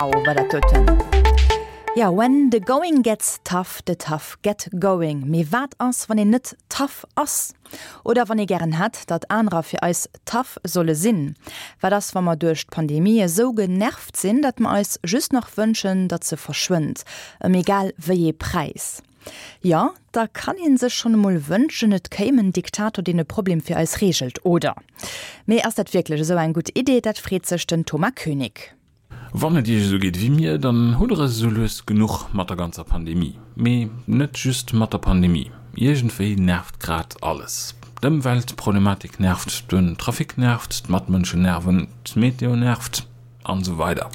Wow, war dat doten. Jo, when the going gets tough, the tough get going. Mee wat ass, wann een net tough ass? Oder wann ee gären hätt, datt anerer fir eis tough solle sinn? Wat ass, wa mer duerch d'Pandemie esou genervt sinn, datt mer eis just nach wënschen, datt se verschwënnt, ëm egal wéi ee Präis? Jo, da kann ee sech schonn emol wënschen, et kéim en Diktator, deen e Problem fir eis reegelt, oder? Mee ass dat wierklech esou eng gutt Idee? Dat freet sech den Thomas Koenig. Wann et iech esou geet wéi mir, dann hutt der es esou lues genuch mat der ganzer Pandemie. Mee net just mat der Pandemie, iergendwéi nervt grad alles. D'Ëmweltproblematik nervt, den Trafic nervt, d'Matmënschen nerven, d'Meteo nervt an esou weider.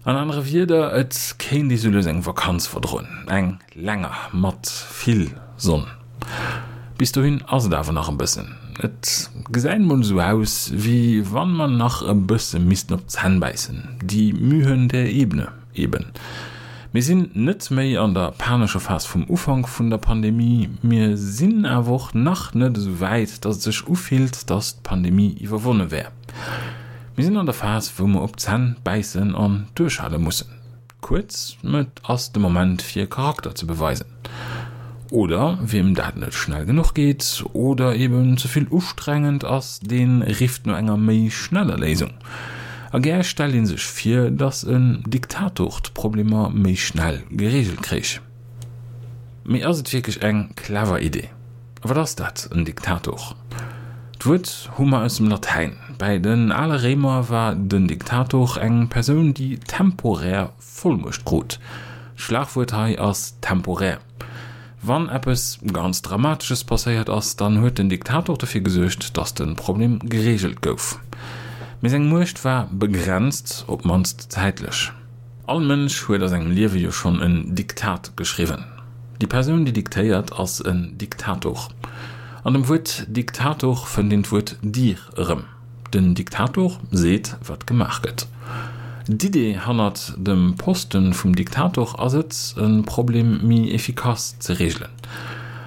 An anere Wierder, et kéint ee sou lues eng Vakanz verdroen, eng länger, mat vill Sonn. Bis dohin ass et awer nach e bëssen. Et gesäit mol esou aus, wéi wann mer nach e bësse missten op d'Zänn bäissen, die Mühen der Ebene eben. Mir sinn net méi an der panescher Phas vum Ufank vun der Pandemie, mir sinn awer och nach net esou wäit, dass et sech ufillt, dass d'Pandemie iwwerwonne wär. Mir sinn an der Phas, wou mer op d'Zänn bäissen an duerchhale mussen. Kuerz, et ass de Moment fir Charakter ze beweisen. Oder wiem dat net schnell genuch geet oder eben ze vill ustrengend ass, dee rifft no enger méi schneller Léisung. A gär stellt ee sech vir, datt en Diktator d'Problemer méi schnell gereegelt kréich. Mee ass et wierklech eng clever Idee? A wat ass dat, en Diktator? D'Wuert hu mer aus dem Latäin. Bäi den ale Réimer war den Diktator eng Persoun, déi temporär Vollmuecht krut. D'Schlagwuert hei ass temporär. Wann eppes ganz Dramatesches passéiert ass, dann huet den Diktator dofir gesuergt, datt de Problem gereegelt gouf. Mee seng Muecht war begrenzt, op d'mannst zäitlech. All Mënsch huet a sengem Liewe jo schonn en Diktat geschriwwen. Déi Persoun, déi diktéiert, ass en Diktator. An dem Wuert Diktator fënnt een d'Wuert dir erëm. Den Diktator seet, wat gemaach gëtt. D'Idee hannert dem Poste vum Diktator ass et, e Problem méi efficace ze reegelen.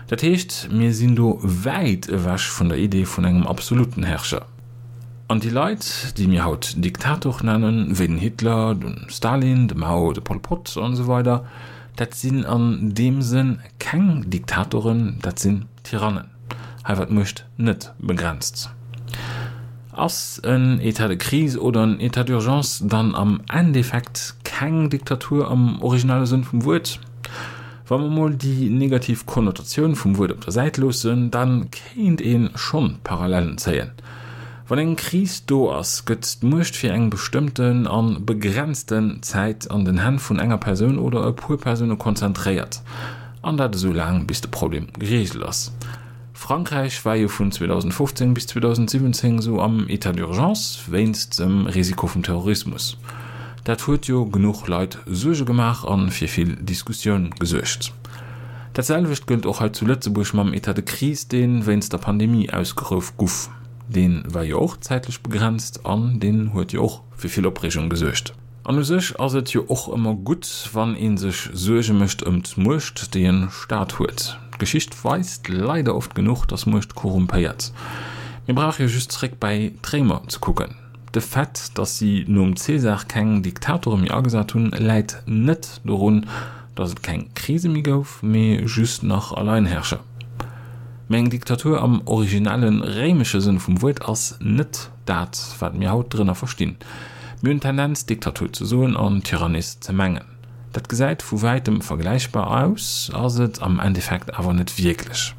Dat heescht, mir sinn do wäit ewech vun der Idee vun engem absoluten Herrscher. An déi Leit, déi mir haut Diktator nennen, wéi den Hitler, de Stalin, de Mao, de Pol Pot an esou weider, dat sinn an deem Sënn keng Diktatoren, dat sinn Tyrannen. Hei war d'Muecht net begrenzt. Ass en État de crise oder en État d'urgence dann am Endeffekt keng Diktatur am originale Sënn vum Wuert? Wa mer mol déi negativ Konnotatioun vum Wuert op der Säit loossen, da kéint ee schonn Parallellen zéien. Wann eng Kris do ass, gëtt d'Muecht fir eng bestëmmten a begrenzten Zäit an den Hänn vun enger Persoun oder e puer Persoune konzentréiert, an dat esou laang bis de Problem gereegelt ass. Frankräich war jo vun 2015 bis 2017 esou am État d'urgence wéinst dem Risiko vum Terrorismus. Dat huet jo genuch Leit Suerge gemaach a fir vill Diskussioun gesuergt. Dat selwecht gëllt och hei zu Lëtzebuerg mam État de crise, dee wéinst der Pandemie ausgeruff guff. Dee war jo och zäitlech begrenzt an deen huet jo och fir vill Opreegung gesuergt. An u sech ass et jo och ëmmer gutt, wann ee sech Suerge mécht ëm d'Muecht, déi en Staat huet. D'Geschicht weist leider oft genuch, dass Muecht korrumpéiert. Mir brauche jo just zeréck bäi d'Réimer ze kucken. De Fait, dass si nom Cäsar keng Diktatore méi agesat hunn, läit net dorun, dass et keng Krise méi gouf, mee just nach Alleinherrscher. Mee eng Diktatur am originelle réimesche Sënn vum Wuert ass net Dat, wat mir haut drënner verstinn. Mir hunn d'Tendenz, Diktatur ze soen an Tyrannis ze mengen. Dat gesäit vu wäitem vergläichbar aus, ass et am Endeffekt awer net wierklech.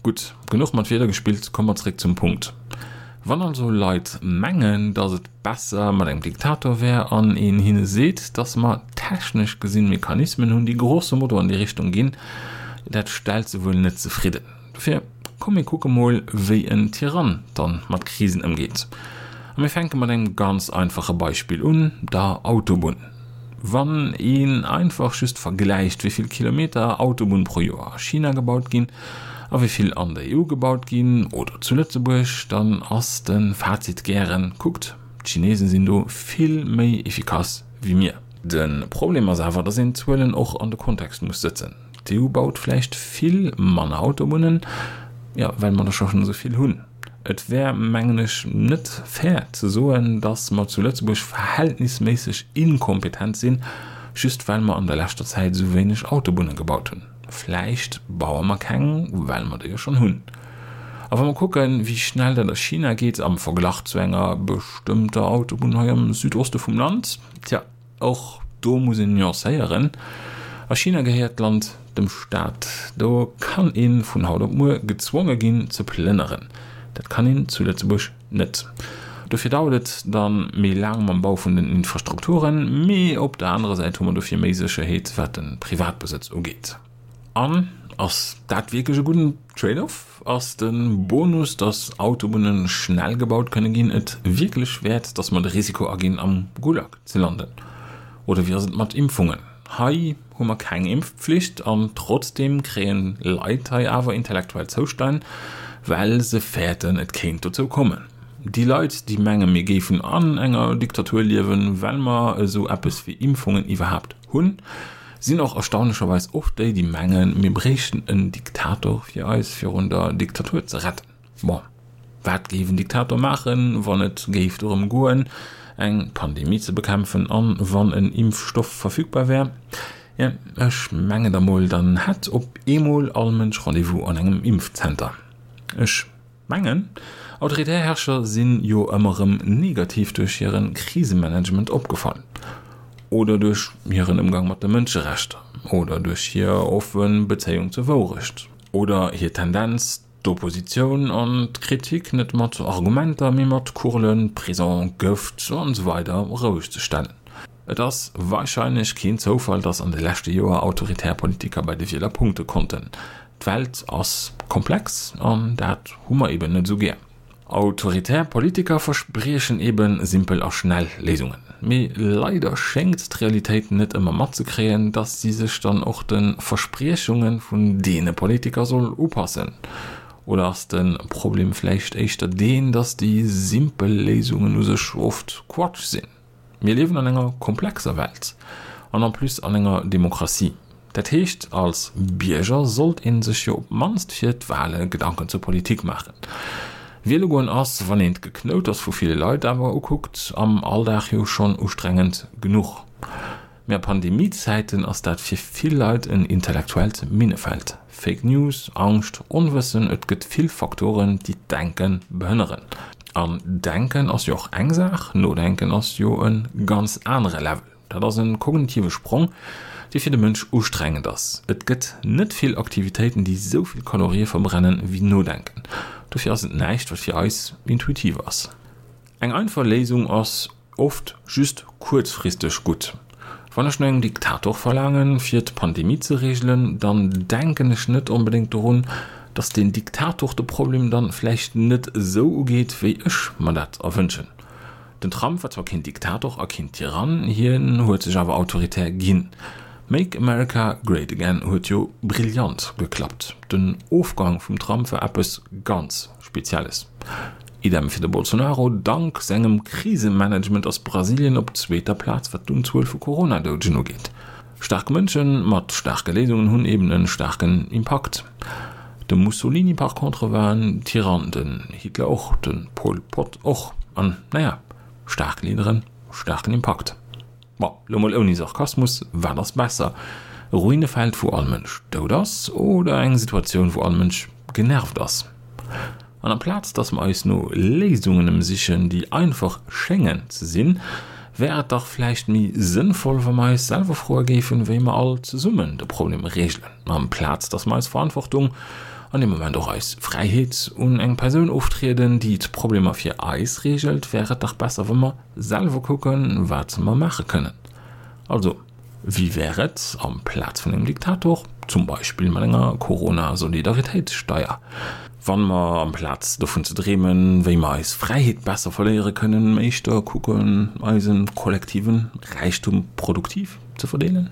Gutt, genuch mat Wierder gespillt, komme mer zeréck zum Punkt. Wann also Leit mengen, datt et besser mat engem Diktator wär an een hinne seet, datt mer technesch gesinn Mechanismen hunn, déi grosso modo an déi Richtung ginn, dat stellt se wuel net zefridden. Dofir, komm mir kucke mol wéi en Tyrann dann mat Krisen ëmgeet. A mir fänke mat engem ganz einfache Beispill un, der Autobunn. Wann een einfach just vergläicht wéi vill Kilometer Autobunn pro Joer a China gebaut ginn a wéi vill an der EU gebaut ginn oder zu Lëtzebuerg, dann ass de Fazit gären, kuckt, d'Chinesen sinn do vill méi efficace wéi mir. De Problem ass awer, dass een d'Zuelen och an de Kontext muss sëtzen. D'EU baut vläicht vill manner Autobunnen, jo, well mer der scho schonn esou vill hunn. Et wär, mengen ech, net fair ze soen, datt mer zu Lëtzebuerg verhältnisméisseg inkompetent sinn, just well mer an der leschter Zäit esou wéineg Autobunne gebaut hunn. Vläicht baue mer keng, well mer der jo schonn hunn. A wa mer kucken, wéi schnell dat a China geet am Verglach zu enger bestëmmter Autobunn hei am Südoste vum Land, tja, Och do muss een nuancéieren, A China gehéiert d'Land dem Staat. Do kann ee vun haut op muer gezwonge ginn ze plënneren. Dat kann een zu Lëtzebuerg net. Dofir dauert et da méi laang mam Bau vun den Infrastrukturen, mee op der anerer Säit hu mer dofir méi Sécherheet wat de Privatbesëtz ugeet. An ass dat wierklech e gudden Trade-off? Ass de Bonus, dass Autobunne schnell gebaut kënne ginn, et wierklech wäert, dass mer de Risiko aginn, am Gulag ze landen? Oder wéi ass et mat Impfungen? Hei hu mer keng Impfpflicht an trotzdeem kréien Leit hei awer intellektuell Zoustänn, well se fäerten, et kéint dozou kommen. Déi Leit, déi mengen, mir géifen an enger Diktatur liewen, well mer esou eppes wéi Impfungen iwwerhaapt hunn, Sinn och erstaunlecherweis oft déi, déi mengen, mir bréichten en Diktator, fir eis virun der Diktatur ze retten. Bon, wat géif en Diktator maachen, wann et géif dorëm goen, eng Pandemie ze bekämpfen an wann en Impfstoff verfügbar wär? Jo, ech mengen da mol, dann hätt op eemol all Mënsch Rendez-vous an engem Impfzenter. Ech. Mengen, autoritär Herrscher sinn jo ëmmer rëm negativ duerch hiren Krisemanagement opgefall. Oder duerch hiren Ëmgang mat de Mënscherechter. Oder duerch hir offe Bezéiung zur Wourecht. Oder hir Tendenz, d'Oppositioun an d'Kritik net mat Argumenter, mee mat Kurlen, Prison, Gëft an esou weider roueg ze stellen. Et ass warscheinlech keen Zoufall, dass an de leschte Joer autoritär Politiker bei de Wieler punkte konnten. D'Welt ass komplex an dat hu mer eben net esou gär. Autoritär Politiker verspriechen eben simpel a schnell Léisungen. Mee leider schéngt d'Realitéit net ëmmer matzekréien, dass si sech dann och de Verspriechunge vun deene Politiker soll upassen. Oder ass de Problem vläicht éischter deen, dass déi simpel Léisungen u sech oft Quatsch sinn? Mir liewen an enger komplexer Welt an en plus an enger Demokratie. Dat heescht, als Bierger sollt ee sech jo op d'mannst fir d'Wale Gedanken zur Politik maachen. Wiele goen ass, wann een d'Geknouters vu ville Leit awer ukuckt, am Alldag jo schonn ustrengend genuch. Mee a Pandemiezäiten ass dat fir vill Leit en intellektuellt Minnefeld. Fake News, Angscht, Onwëssen, et gëtt vill Faktoren, déi d'Denke behënneren. An Denken ass jo och eng Saach, Nodenken ass jo e ganz anere Level. Dat ass e kognitive Sprong, dee fir de Mënsch ustrengend ass. Et gëtt net vill Aktivitéiten, déi sou vill Kalorië verbrennen, wéi Nodenken. Dofir ass et näischt, wat fir eis intuitiv ass. Eng einfach Léisung ass oft just kuerzfristeg gutt. Wann ech no engem Diktator verlaangen, fir d'Pandemie ze reegelen, dann denken ech net onbedéngt dorun, datt deen Diktator de Problem dann vläicht net esou ugeet, wéi ech mer dat erwënschen. Den Trump war zwar keen Diktator a keen Tyrann, hien huet sech awer autoritär ginn. Make America Great Again huet jo brillant geklappt. Den Ofgang vum Trump war eppes ganz Spezielles. Idem fir de Bolsonaro, Dank sengem Krisemanagement ass Brasilien op zweeter Plaz wat d'Unzuel vu Corona-Doudegen ugeet. Staark Mënsche mat staarke Léisungen hunn eben e staarken Impakt. De Mussolini par contre war en Tyrann, den Hitler och, de Pol Pot och. An naja, staark Leaderen, staarken Impakt. Bon, lo mol ouni Sarkasmus, wat ass besser, e Ruinefeld wou all Mënsch dout ass oder eng Situatioun wou all Mënsch genervt ass? An amplaz dass mer eis no Léisungen emsichen déi einfach schéngen ze sinn, wär et dach vläicht méi sënnvoll wa mer eis selwer froe géifen wéi mer all zesummen de Problem reegelen, amplaz dass mer eis Verantwortung, an deem Moment och eis Fräiheet, un eng Persoun oftrieden déi d'Problemer fir eis reegelt, wär et dach besser wa mer Selwer kucken, wat mer maache kënnen. Also, wéi wär et, amplaz vun engem Diktator, zum Beispill mat enger Corona-Solidaritéitssteier, wann mer, amplaz dovun ze dreemen, wéi mer eis Fräiheet besser verléiere kënnen, éischter kucken, eise kollektive Räichtum produktiv ze verdeelen?